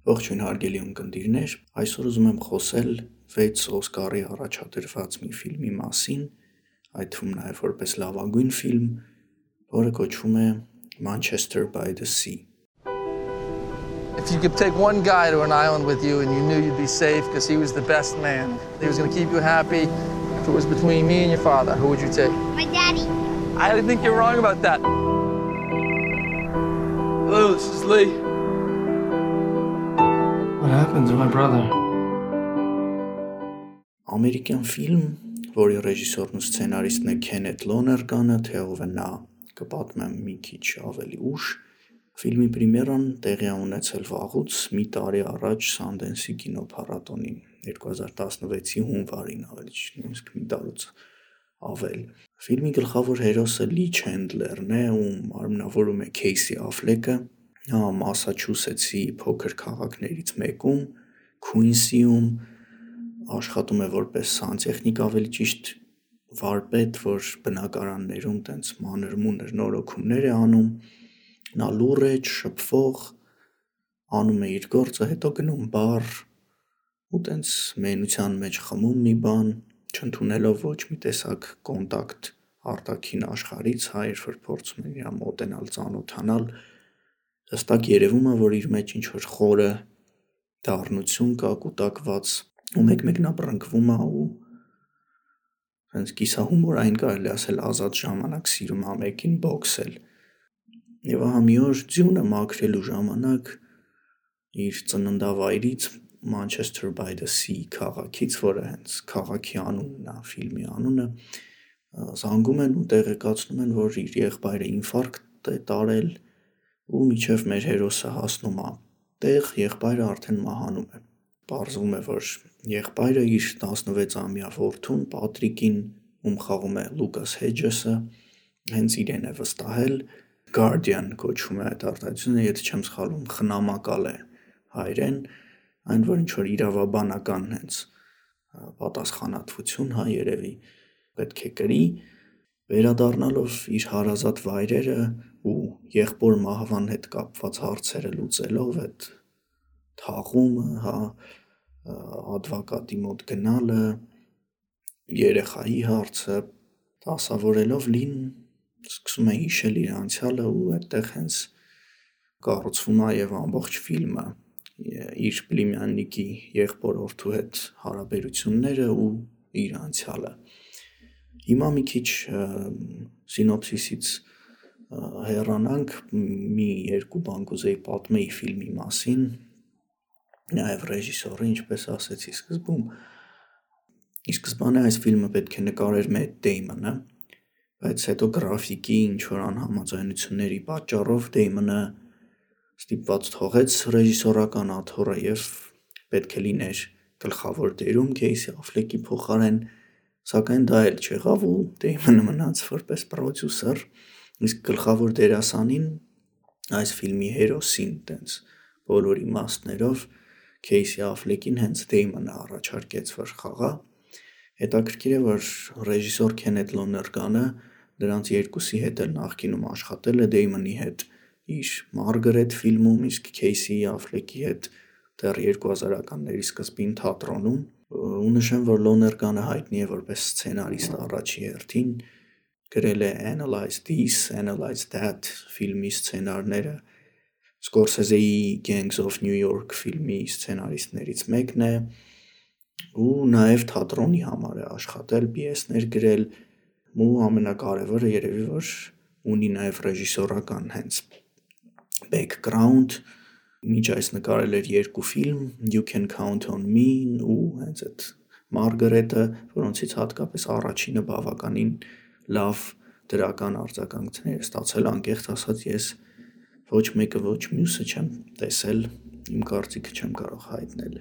Ողջույն հարգելի ունկնդիրներ, այսօր ուզում եմ խոսել 6 Օսկարի առաջադրված մի ֆիլմի մասին, այդ թվում նաև որպես լավագույն ֆիլմ, որը կոչվում է Manchester by the Sea. If you could take one guy to an island with you and you knew you'd be safe because he was the best man, he was going to keep you happy, if it was between me and your father, who would you take? My daddy. I think you're wrong about that. Hello, this is Lee. What happened to my brother? Ամերիկյան ֆիլմ, որի ռեժիսորն ու սցենարիստն է Քենեթ Լոներգանը, թե ով է նա, կպատմեմ մի քիչ ավելի ուշ. Ֆիլմի պրեմիերան տեղի ունեցել վաղուց մի տարի առաջ Սանդենսի կինոփառատոնին 2016-ի հունվարին, ավելի ճիշտ նույնիսկ մի տարուց ավել։ Ֆիլմի գլխավոր հերոսը Լի Չենդլերն է, ում արմնավորում է Քեյսի Աֆլեկը, նա Մասաչուսեթսի փոքր քաղաքներից մեկում, Քուինսիում աշխատում է որպես սանտեխնիկ, ավելի ճիշտ վարպետ, որ բնակարաններում տենց մանր-մունր նորոգումներ է անում։ Նա լուռ է, շփվող, անում է իր գործը, հետո գնում բար ու տենց մենության մեջ խմում մի բան, չընդունելով ոչ մի տեսակ կոնտակտ արտաքին աշխարհից, երբ որ փորձում են իրան մոտենալ, ծանոթանալ, հստակ երևում է, որ իր մեջ ինչ-որ խորը դառնություն կա, կուտակված, ու մեկ-մեկ նա բռնկվում է ու հենց կիսահումորային կարելի ասել ազատ ժամանակ սիրում է մեկին բոքսել։ Եվ ահա մի օր ձյունը մաքրելու ժամանակ իր ծննդավայրից Manchester by the Sea քաղաքից, որը հենց քաղաքի անունն է, ֆիլմի անունը, զանգում են ու տեղեկացնում են, որ իր եղբայրը ինֆարկտ է տարել ու մինչև մեր հերոսը հասնում է տեղ, եղբայրը արդեն մահանում է։ Պարզվում է, որ եղբայրը իր 16-ամյա որդուն Պատրիկին, ում խաղում է Լուկաս Հեջեսը, հենց իրեն է վստահել, Guardian կոչվում է այդ արտահայտությունը, եթե չեմ սխալվում, խնամակալ է հայերեն, այն որ ինչ-որ իրավաբանական հենց պատասխանատվություն, երևի պետք է կրի, վերադառնալով իր հարազատ վայրերը ու եղբոր մահվան հետ կապված հարցերը լուծելով, այդ թաղումը, ադվոկատի մոտ գնալը, երեխայի հարցը, դասավորելով Լին սկսում է հիշել իր անցյալը ու այդտեղ հենց կառուցվում է եւ ամբողջ ֆիլմը իր պլիմյաննիկի եղբոր որդու հետ հարաբերությունները ու իր անցյալը։ Հիմա մի քիչ սինոպսիսից հեռանանք, մի երկու բան կուզեի պատմեի ֆիլմի մասին, նաև ռեժիսորը, ինչպես ասեցի սկզբում, ի սկզբանե այս ֆիլմը պետք է նկարեր Մեթ Դեյմոնը, բայց հետո գրաֆիկի ինչ-որ անհամաձայնությունների պատճառով Դեյմոնը ստիպված թողեց ռեժիսորական աթոռը եւ պետք է լիներ գլխավոր դերում Քեյսի Աֆլեկի փոխարեն, սակայն դա էլ չեղավ ու Դեյմոնը մնաց որպես պրոդյուսեր, իսկ գլխավոր դերասանին, այս ֆիլմի հերոսին, տենց բոլոր իմաստներով Քեյսի Աֆլեկին հենց Դեյմոնը առաջարկեց, որ խաղա։ Հետաքրքիր է, որ ռեժիսոր Քենեթ Լոներգանը դրանց երկուսի հետ էլ նախկինում աշխատել է, Դեյմոնի հետ իր Մարգարետ ֆիլմում, իսկ Քեյսի Աֆլեկի հետ դեռ 2000-ականների սկզբին թատրոնում, ու նշեմ, որ Լոներգանը հայտնի է որպես սցենարիստ առաջի հերթին, գրել է Analyze This, Analyze That ֆիլմի սցենարները, Սկորսեզեի Gangs of New York ֆիլմի սցենարիստներից մեկն է, ու նաև թատրոնի համար է աշխատել, պիեսներ գրել, ու ամենակարևորը երևի որ ունի նաև ռեժիսորական հենց background, մինչ այս նկարել էր 2 ֆիլմ, You Can Count on Me ու հենց այդ Մարգարետը, որոնցից հատկապես առաջինը բավականին լավ դրական արձագանքներ ստացել, անկեղծ ասած ես ոչ մեկը ոչ մյուսը չեմ տեսել, իմ կարծիքը չեմ կարող հայտնել։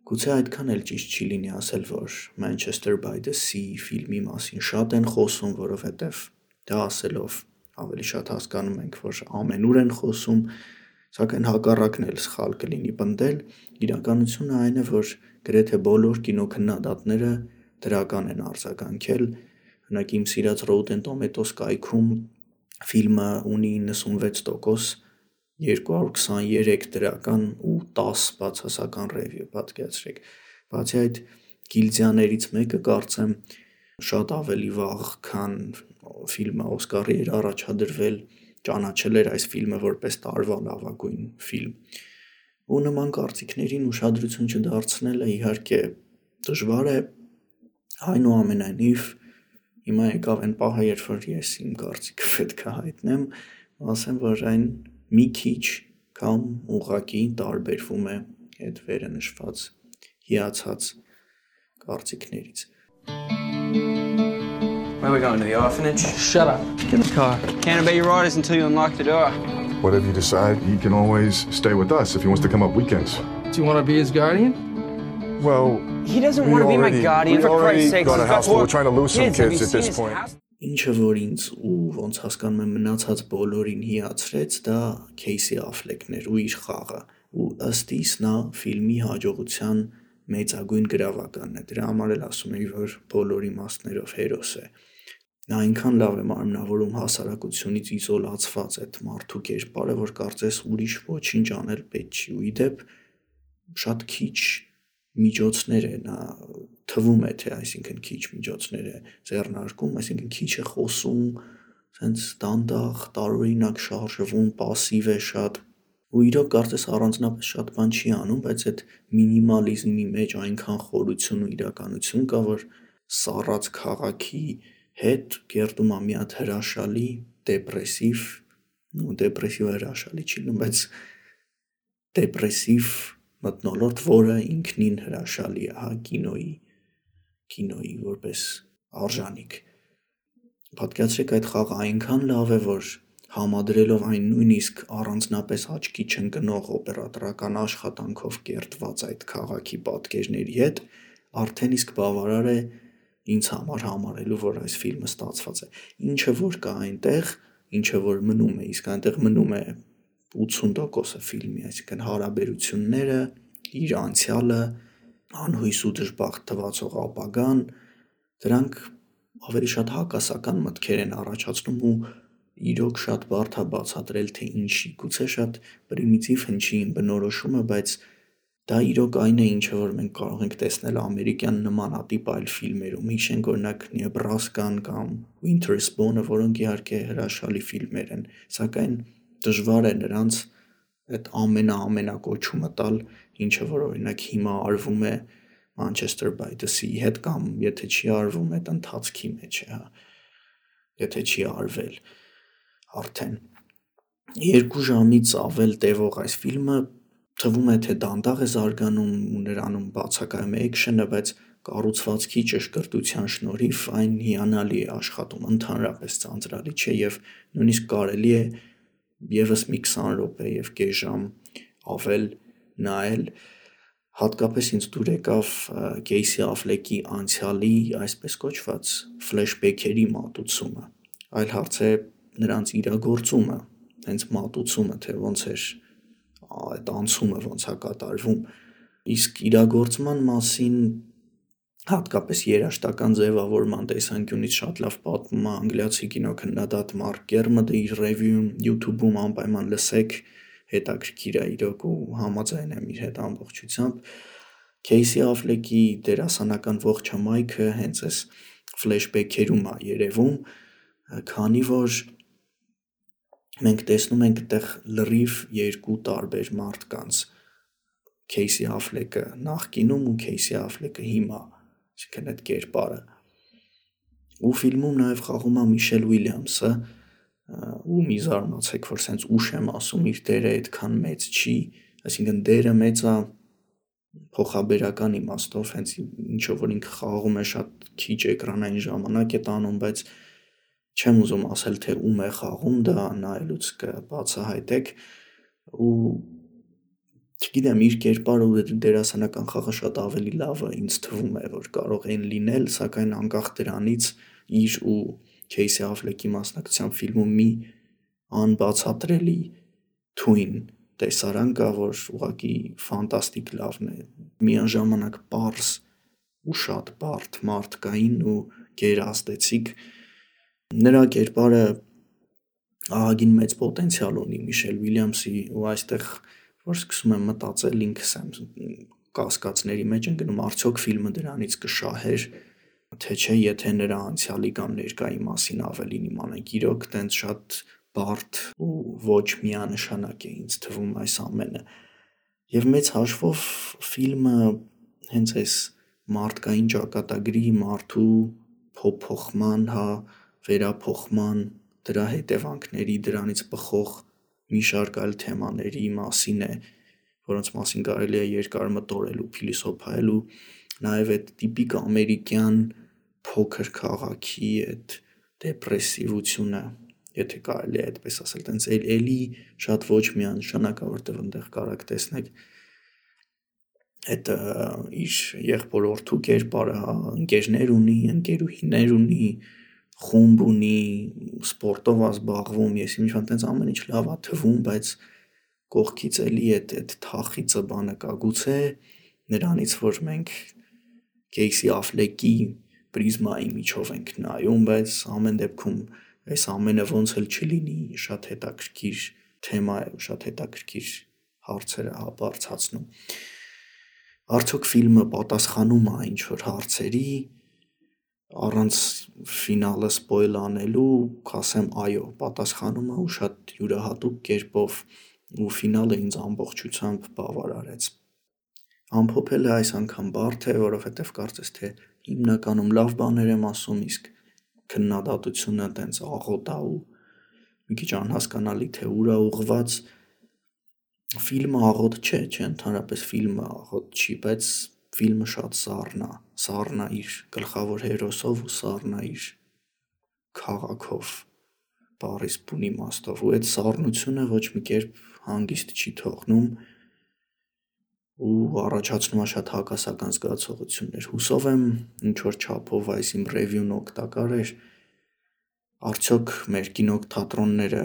Գուցե այդքան էլ ճիշտ չի լինի ասել, որ Manchester by the Sea ֆիլմի մասին շատ են խոսում, որովհետև դա ասելով ավելի շատ հասկանում ենք, որ ամենուր են խոսում, սակայն հակառակն էլ սխալ կլինի պնդել, իրականությունը այն է, որ գրեթե բոլոր կինոքննադատները դրական են արձագանքել, օրինակ իմ սիրած Rotten Tomatoes կայքում ֆիլմը ունի 96% 223 դրական ու 10 բացասական review, պատկերացրեք։ Բացի այդ գիլդիաներից մեկը կարծեմ շատ ավելի վաղ, քան ֆիլմը Օսկարի էր առաջադրվել, ճանաչել էր այս ֆիլմը որպես տարվա լավագույն ֆիլմ։ Ու նման կարծիքներին ուշադրություն չդարձնելը իհարկե դժվար է, այնուամենայնիվ հիմա եկավ այն պահը, երբ որ ես իմ կարծիքը պետք է հայտնեմ, ասեմ, որ այն մի քիչ կամ ուղղակի տարբերվում է այդ վերը նշված հիացած կարծիքներից։ Where are we going, to the orphanage? Shut up. Get in the car. Can't obey your orders until you unlock the door. Whatever you decide, he can always stay with us if he wants to come up weekends. Do you want to be his guardian? Well, He doesn't want to be my guardian, for Christ's sake. got a house full. We're trying to lose some Kids, have you kids at seen this his point. house? Ինչը որ ինձ ու ոնց հասկանում եմ մնացած բոլորին հիացրեց, դա Քեյսի Աֆլեկն էր ու իր խաղը, ու ըստ իս նա ֆիլմի հաջողության մեծագույն գրավականն է, դրա համար էլ ասում էի, որ բոլոր իմաստներով հերոս է։ Նա այնքան լավ է մարմնավորում հասարակությունից իզոլացված այդ մարդու կերպարը, որ կարծես ուրիշ ոչինչ անել պետք չի, ու իդեպ շատ քիչ միջոցներ է նա թվում է, թե այսինքն քիչ միջոցներ է ձեռնարկում, այսինքն քիչ է խոսում, սենց դանդաղ, տարօրինակ շարժվում, պասիվ է շատ, ու իրոք կարծես առանձնապես շատ բան չի անում, բայց այդ մինիմալիզմի մեջ այնքան խորություն ու իրականություն կա, որ սառած քաղաքի հետ կերտում է մի հատ հրաշալի, դեպրեսիվ հրաշալի չի լինում, բայց դեպրեսիվ մթնոլորտ, որը ինքնին հրաշալի է, հա, կինոյի որպես արժանիք։ Պատկերացրեք, այդ խաղը այնքան լավ է, որ համադրելով այն նույնիսկ առանձնապես աչքի չընկնող օպերատորական աշխատանքով կերտված այդ քաղաքի պատկերների հետ, արդեն իսկ բավարար է ինձ համար համարելու, որ այս ֆիլմը ստացված է։ Ինչը որ կա այնտեղ, ինչը որ մնում է, իսկ այնտեղ մնում է 80%-ը ֆիլմի, այսինքն հարաբերությունները, իր անցյալը, անհույս ու դժբախտ թվացող ապագան, դրանք ավելի շատ հակասական մտքեր են առաջացնում ու իրոք շատ բարդ է բացատրել, թե ինչի, գուցե շատ պրիմիտիվ հնչի իմ բնորոշումը, բայց դա իրոք այն է, ինչը որ մենք կարող ենք տեսնել ամերիկյան նմանատիպ այլ ֆիլմերում, հիշենք օրինակ Նեբրասկան կամ Winter's Bone-ը, որոնք իհարկե հրաշալի ֆիլմեր են, սակայն դժվար է նրանց այդ ամենակոչումը տալ, ինչը որ օրինակ հիմա արվում է Manchester by the Sea հետ կամ եթե չի արվում այդ ընթացքի մեջ է, եթե չի արվել արդեն 2 ժամից ավել տևող այս ֆիլմը թվում է թե դանդաղ է զարգանում ու նրանում բացակայում է էքշենը, բայց կառուցվածքի ճշգրտության շնորհիվ այն հիանալի է աշխատում, ընդհանրապես ծանծրալի չէ եւ նույնիսկ կարելի է եւս մի 20 րոպե եւ կես ժամ ավել նայել, հատկապես ինձ դուր եկավ Քեյսի Աֆլեկի անցյալի այսպես կոչված ֆլեշբեքերի մատուցումը, այլ հարց է նրանց իրագործումը, հենց մատուցումը, թե ոնց էր այդ անցումը ոնց է կատարվում, իսկ իրագործման մասին հատկապես երաժշտական ձևավորման տեսանկյունից շատ լավ պատմում է անգլիացի կինոքննադատ Մարկ Կերմոդը իր ռևյուում YouTube-ում անպայման լսեք, հետաքրքիր է իրոք ու համաձայն եմ իր հետ ամբողջությամբ։ Քեյսի Աֆլեկի դերասանական ողջ հմայքը հենց այս ֆլեշբեքերում է երևում, քանի որ մենք տեսնում ենք այդտեղ լրիվ 2 տարբեր մարդկանց, Քեյսի Աֆլեկը նախկինում ու Քեյսի Աֆլեկը հիմա, այսինքն այդ կերպարը։ Ու ֆիլմում նաև խաղում է Միշել Ուիլյամսը, ու մի զարմացեք, որ սենց ուշ եմ ասում, իր դերը այդքան մեծ չի, այսինքն դերը մեծ է փոխաբերական իմաստով, հենց ինչով որ ինքը խաղում է շատ քիչ էկրանային ժամանակ է տանում, բայց չեմ ուզում ասել, թե ում է խաղում, դա նայելուց կբացահայտեք, ու չգիտեմ, իր կերպարը ու դերասանական խաղը շատ ավելի լավը ինձ թվում է, որ կարող են լինել, սակայն անկախ դրանից իր ու Քեյսի Աֆլեկի մասնակցությամբ ֆիլմում մի անբացատրելի թույն տեսարան կա, որ ուղղակի ֆանտաստիկ լավն է, միաժամանակ պարզ ու շատ բարդ մարդկային ու գերազդեցիկ, նրա կերպարը ահագին մեծ պոտենցիալ ունի Միշել Ուիլյամսի ու այստեղ որ սկսում եմ մտածել ինքս եմ կասկածների մեջ ընկնում արդյոք ֆիլմը դրանից կշահեր թե չէ եթե նրա անցյալի կամ ներկայի մասին ավելին իմանանք իրոք տենց շատ բարդ ու ոչ միանշանակ է ինձ թվում այս ամենը եւ մեծ հաշվով ֆիլմը հենց այս մարդկային ճակատագրի մարդու փոփոխման վերափոխման դրա հետևանքների դրանից բխող մի շարք այլ թեմաների մասին է որոնց մասին կարելի է երկար մտորել ու փիլիսոփայել ու նաև այդ տիպիկ ամերիկյան փոքր քաղաքի այդ դեպրեսիվությունը եթե կարելի է այդպես ասել տենց էլի շատ ոչ միանշանակ է որտեղ այնտեղ կարաք տեսնեք այդ իր եղբորորդու կերպարը ընկերներ ունի ընկերուհիներ ունի խումբ ունի սպորտով ազբաղվում ես ինչ-որ տենց ամեն ինչ լավ է թվում բայց կողքից էլի այդ թախիծը բանը կա գուցե նրանից որ մենք Կեյսի Աֆլեկի պրիզմայի միջով ենք նայում բայց ամեն դեպքում այս ամենը ոնց էլ չլինի շատ հետաքրքիր թեմա է շատ հետաքրքիր հարցեր է բարձրացնում արդյոք ֆիլմը պատասխանում է ինչ-որ հարցերի առանց ֆինալը սպոյլ անելու կասեմ այո պատասխանում է ու շատ յուրահատուկ կերպով ու ֆինալը ինձ ամբողջությամբ բավարարեց ամփոփելը այս անգամ բարդ է որովհետև կարծես թե հիմնականում լավ բաներ եմ ասում իսկ քննադատությունը տենց աղոտ է ու մի քիչ անհասկանալի թե ուր է ուղղված ֆիլմը աղոտ չէ ընդհանրապես ֆիլմը աղոտ չի բայց ֆիլմը շատ սառն է իր գլխավոր հերոսով ու սառն է իր քաղաքով բառիս բուն իմաստով ու այդ սառնությունը ոչ մի կերպ հանգիստ չի թողնում ու առաջացնում է շատ հակասական զգացողություններ հուսով եմ ինչ որ չափով այս իմ ռևյուն օգտակար էր արդյոք մեր կինոթատրոնները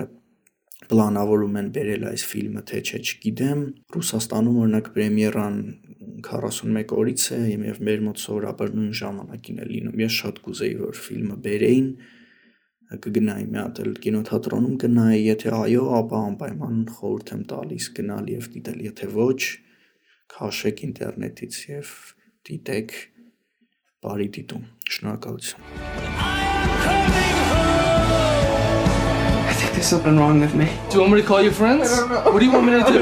պլանավորում են բերել այս ֆիլմը թե չէ չգիտեմ Ռուսաստանում օրինակ պրեմիերան 41 օրից է եւ մեր մոտ սովորաբար նույն ժամանակին է լինում ես շատ կուզեի որ ֆիլմը բերեին կգնայի մի հատ էլ կինոթատրոնում գնայի եթե այո ապա անպայման խորհուրդ եմ տալիս գնալ եւ դիտել եթե ոչ քաշեք ինտերնետից եւ դիտեք բարի դիտում շնորհակալություն There's something wrong with me. Do you want me to call your friends? No. What do you want me to do?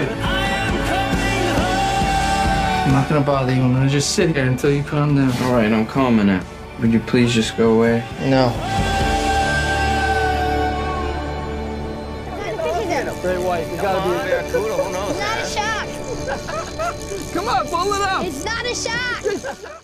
I'm not gonna bother you. I'm gonna just sit here until you calm down. All right, I'm calming now. Would you please just go away? No. Great white. You gotta be a barracuda. Who knows? It's not a shark. Come on, pull it up. It's not a shark.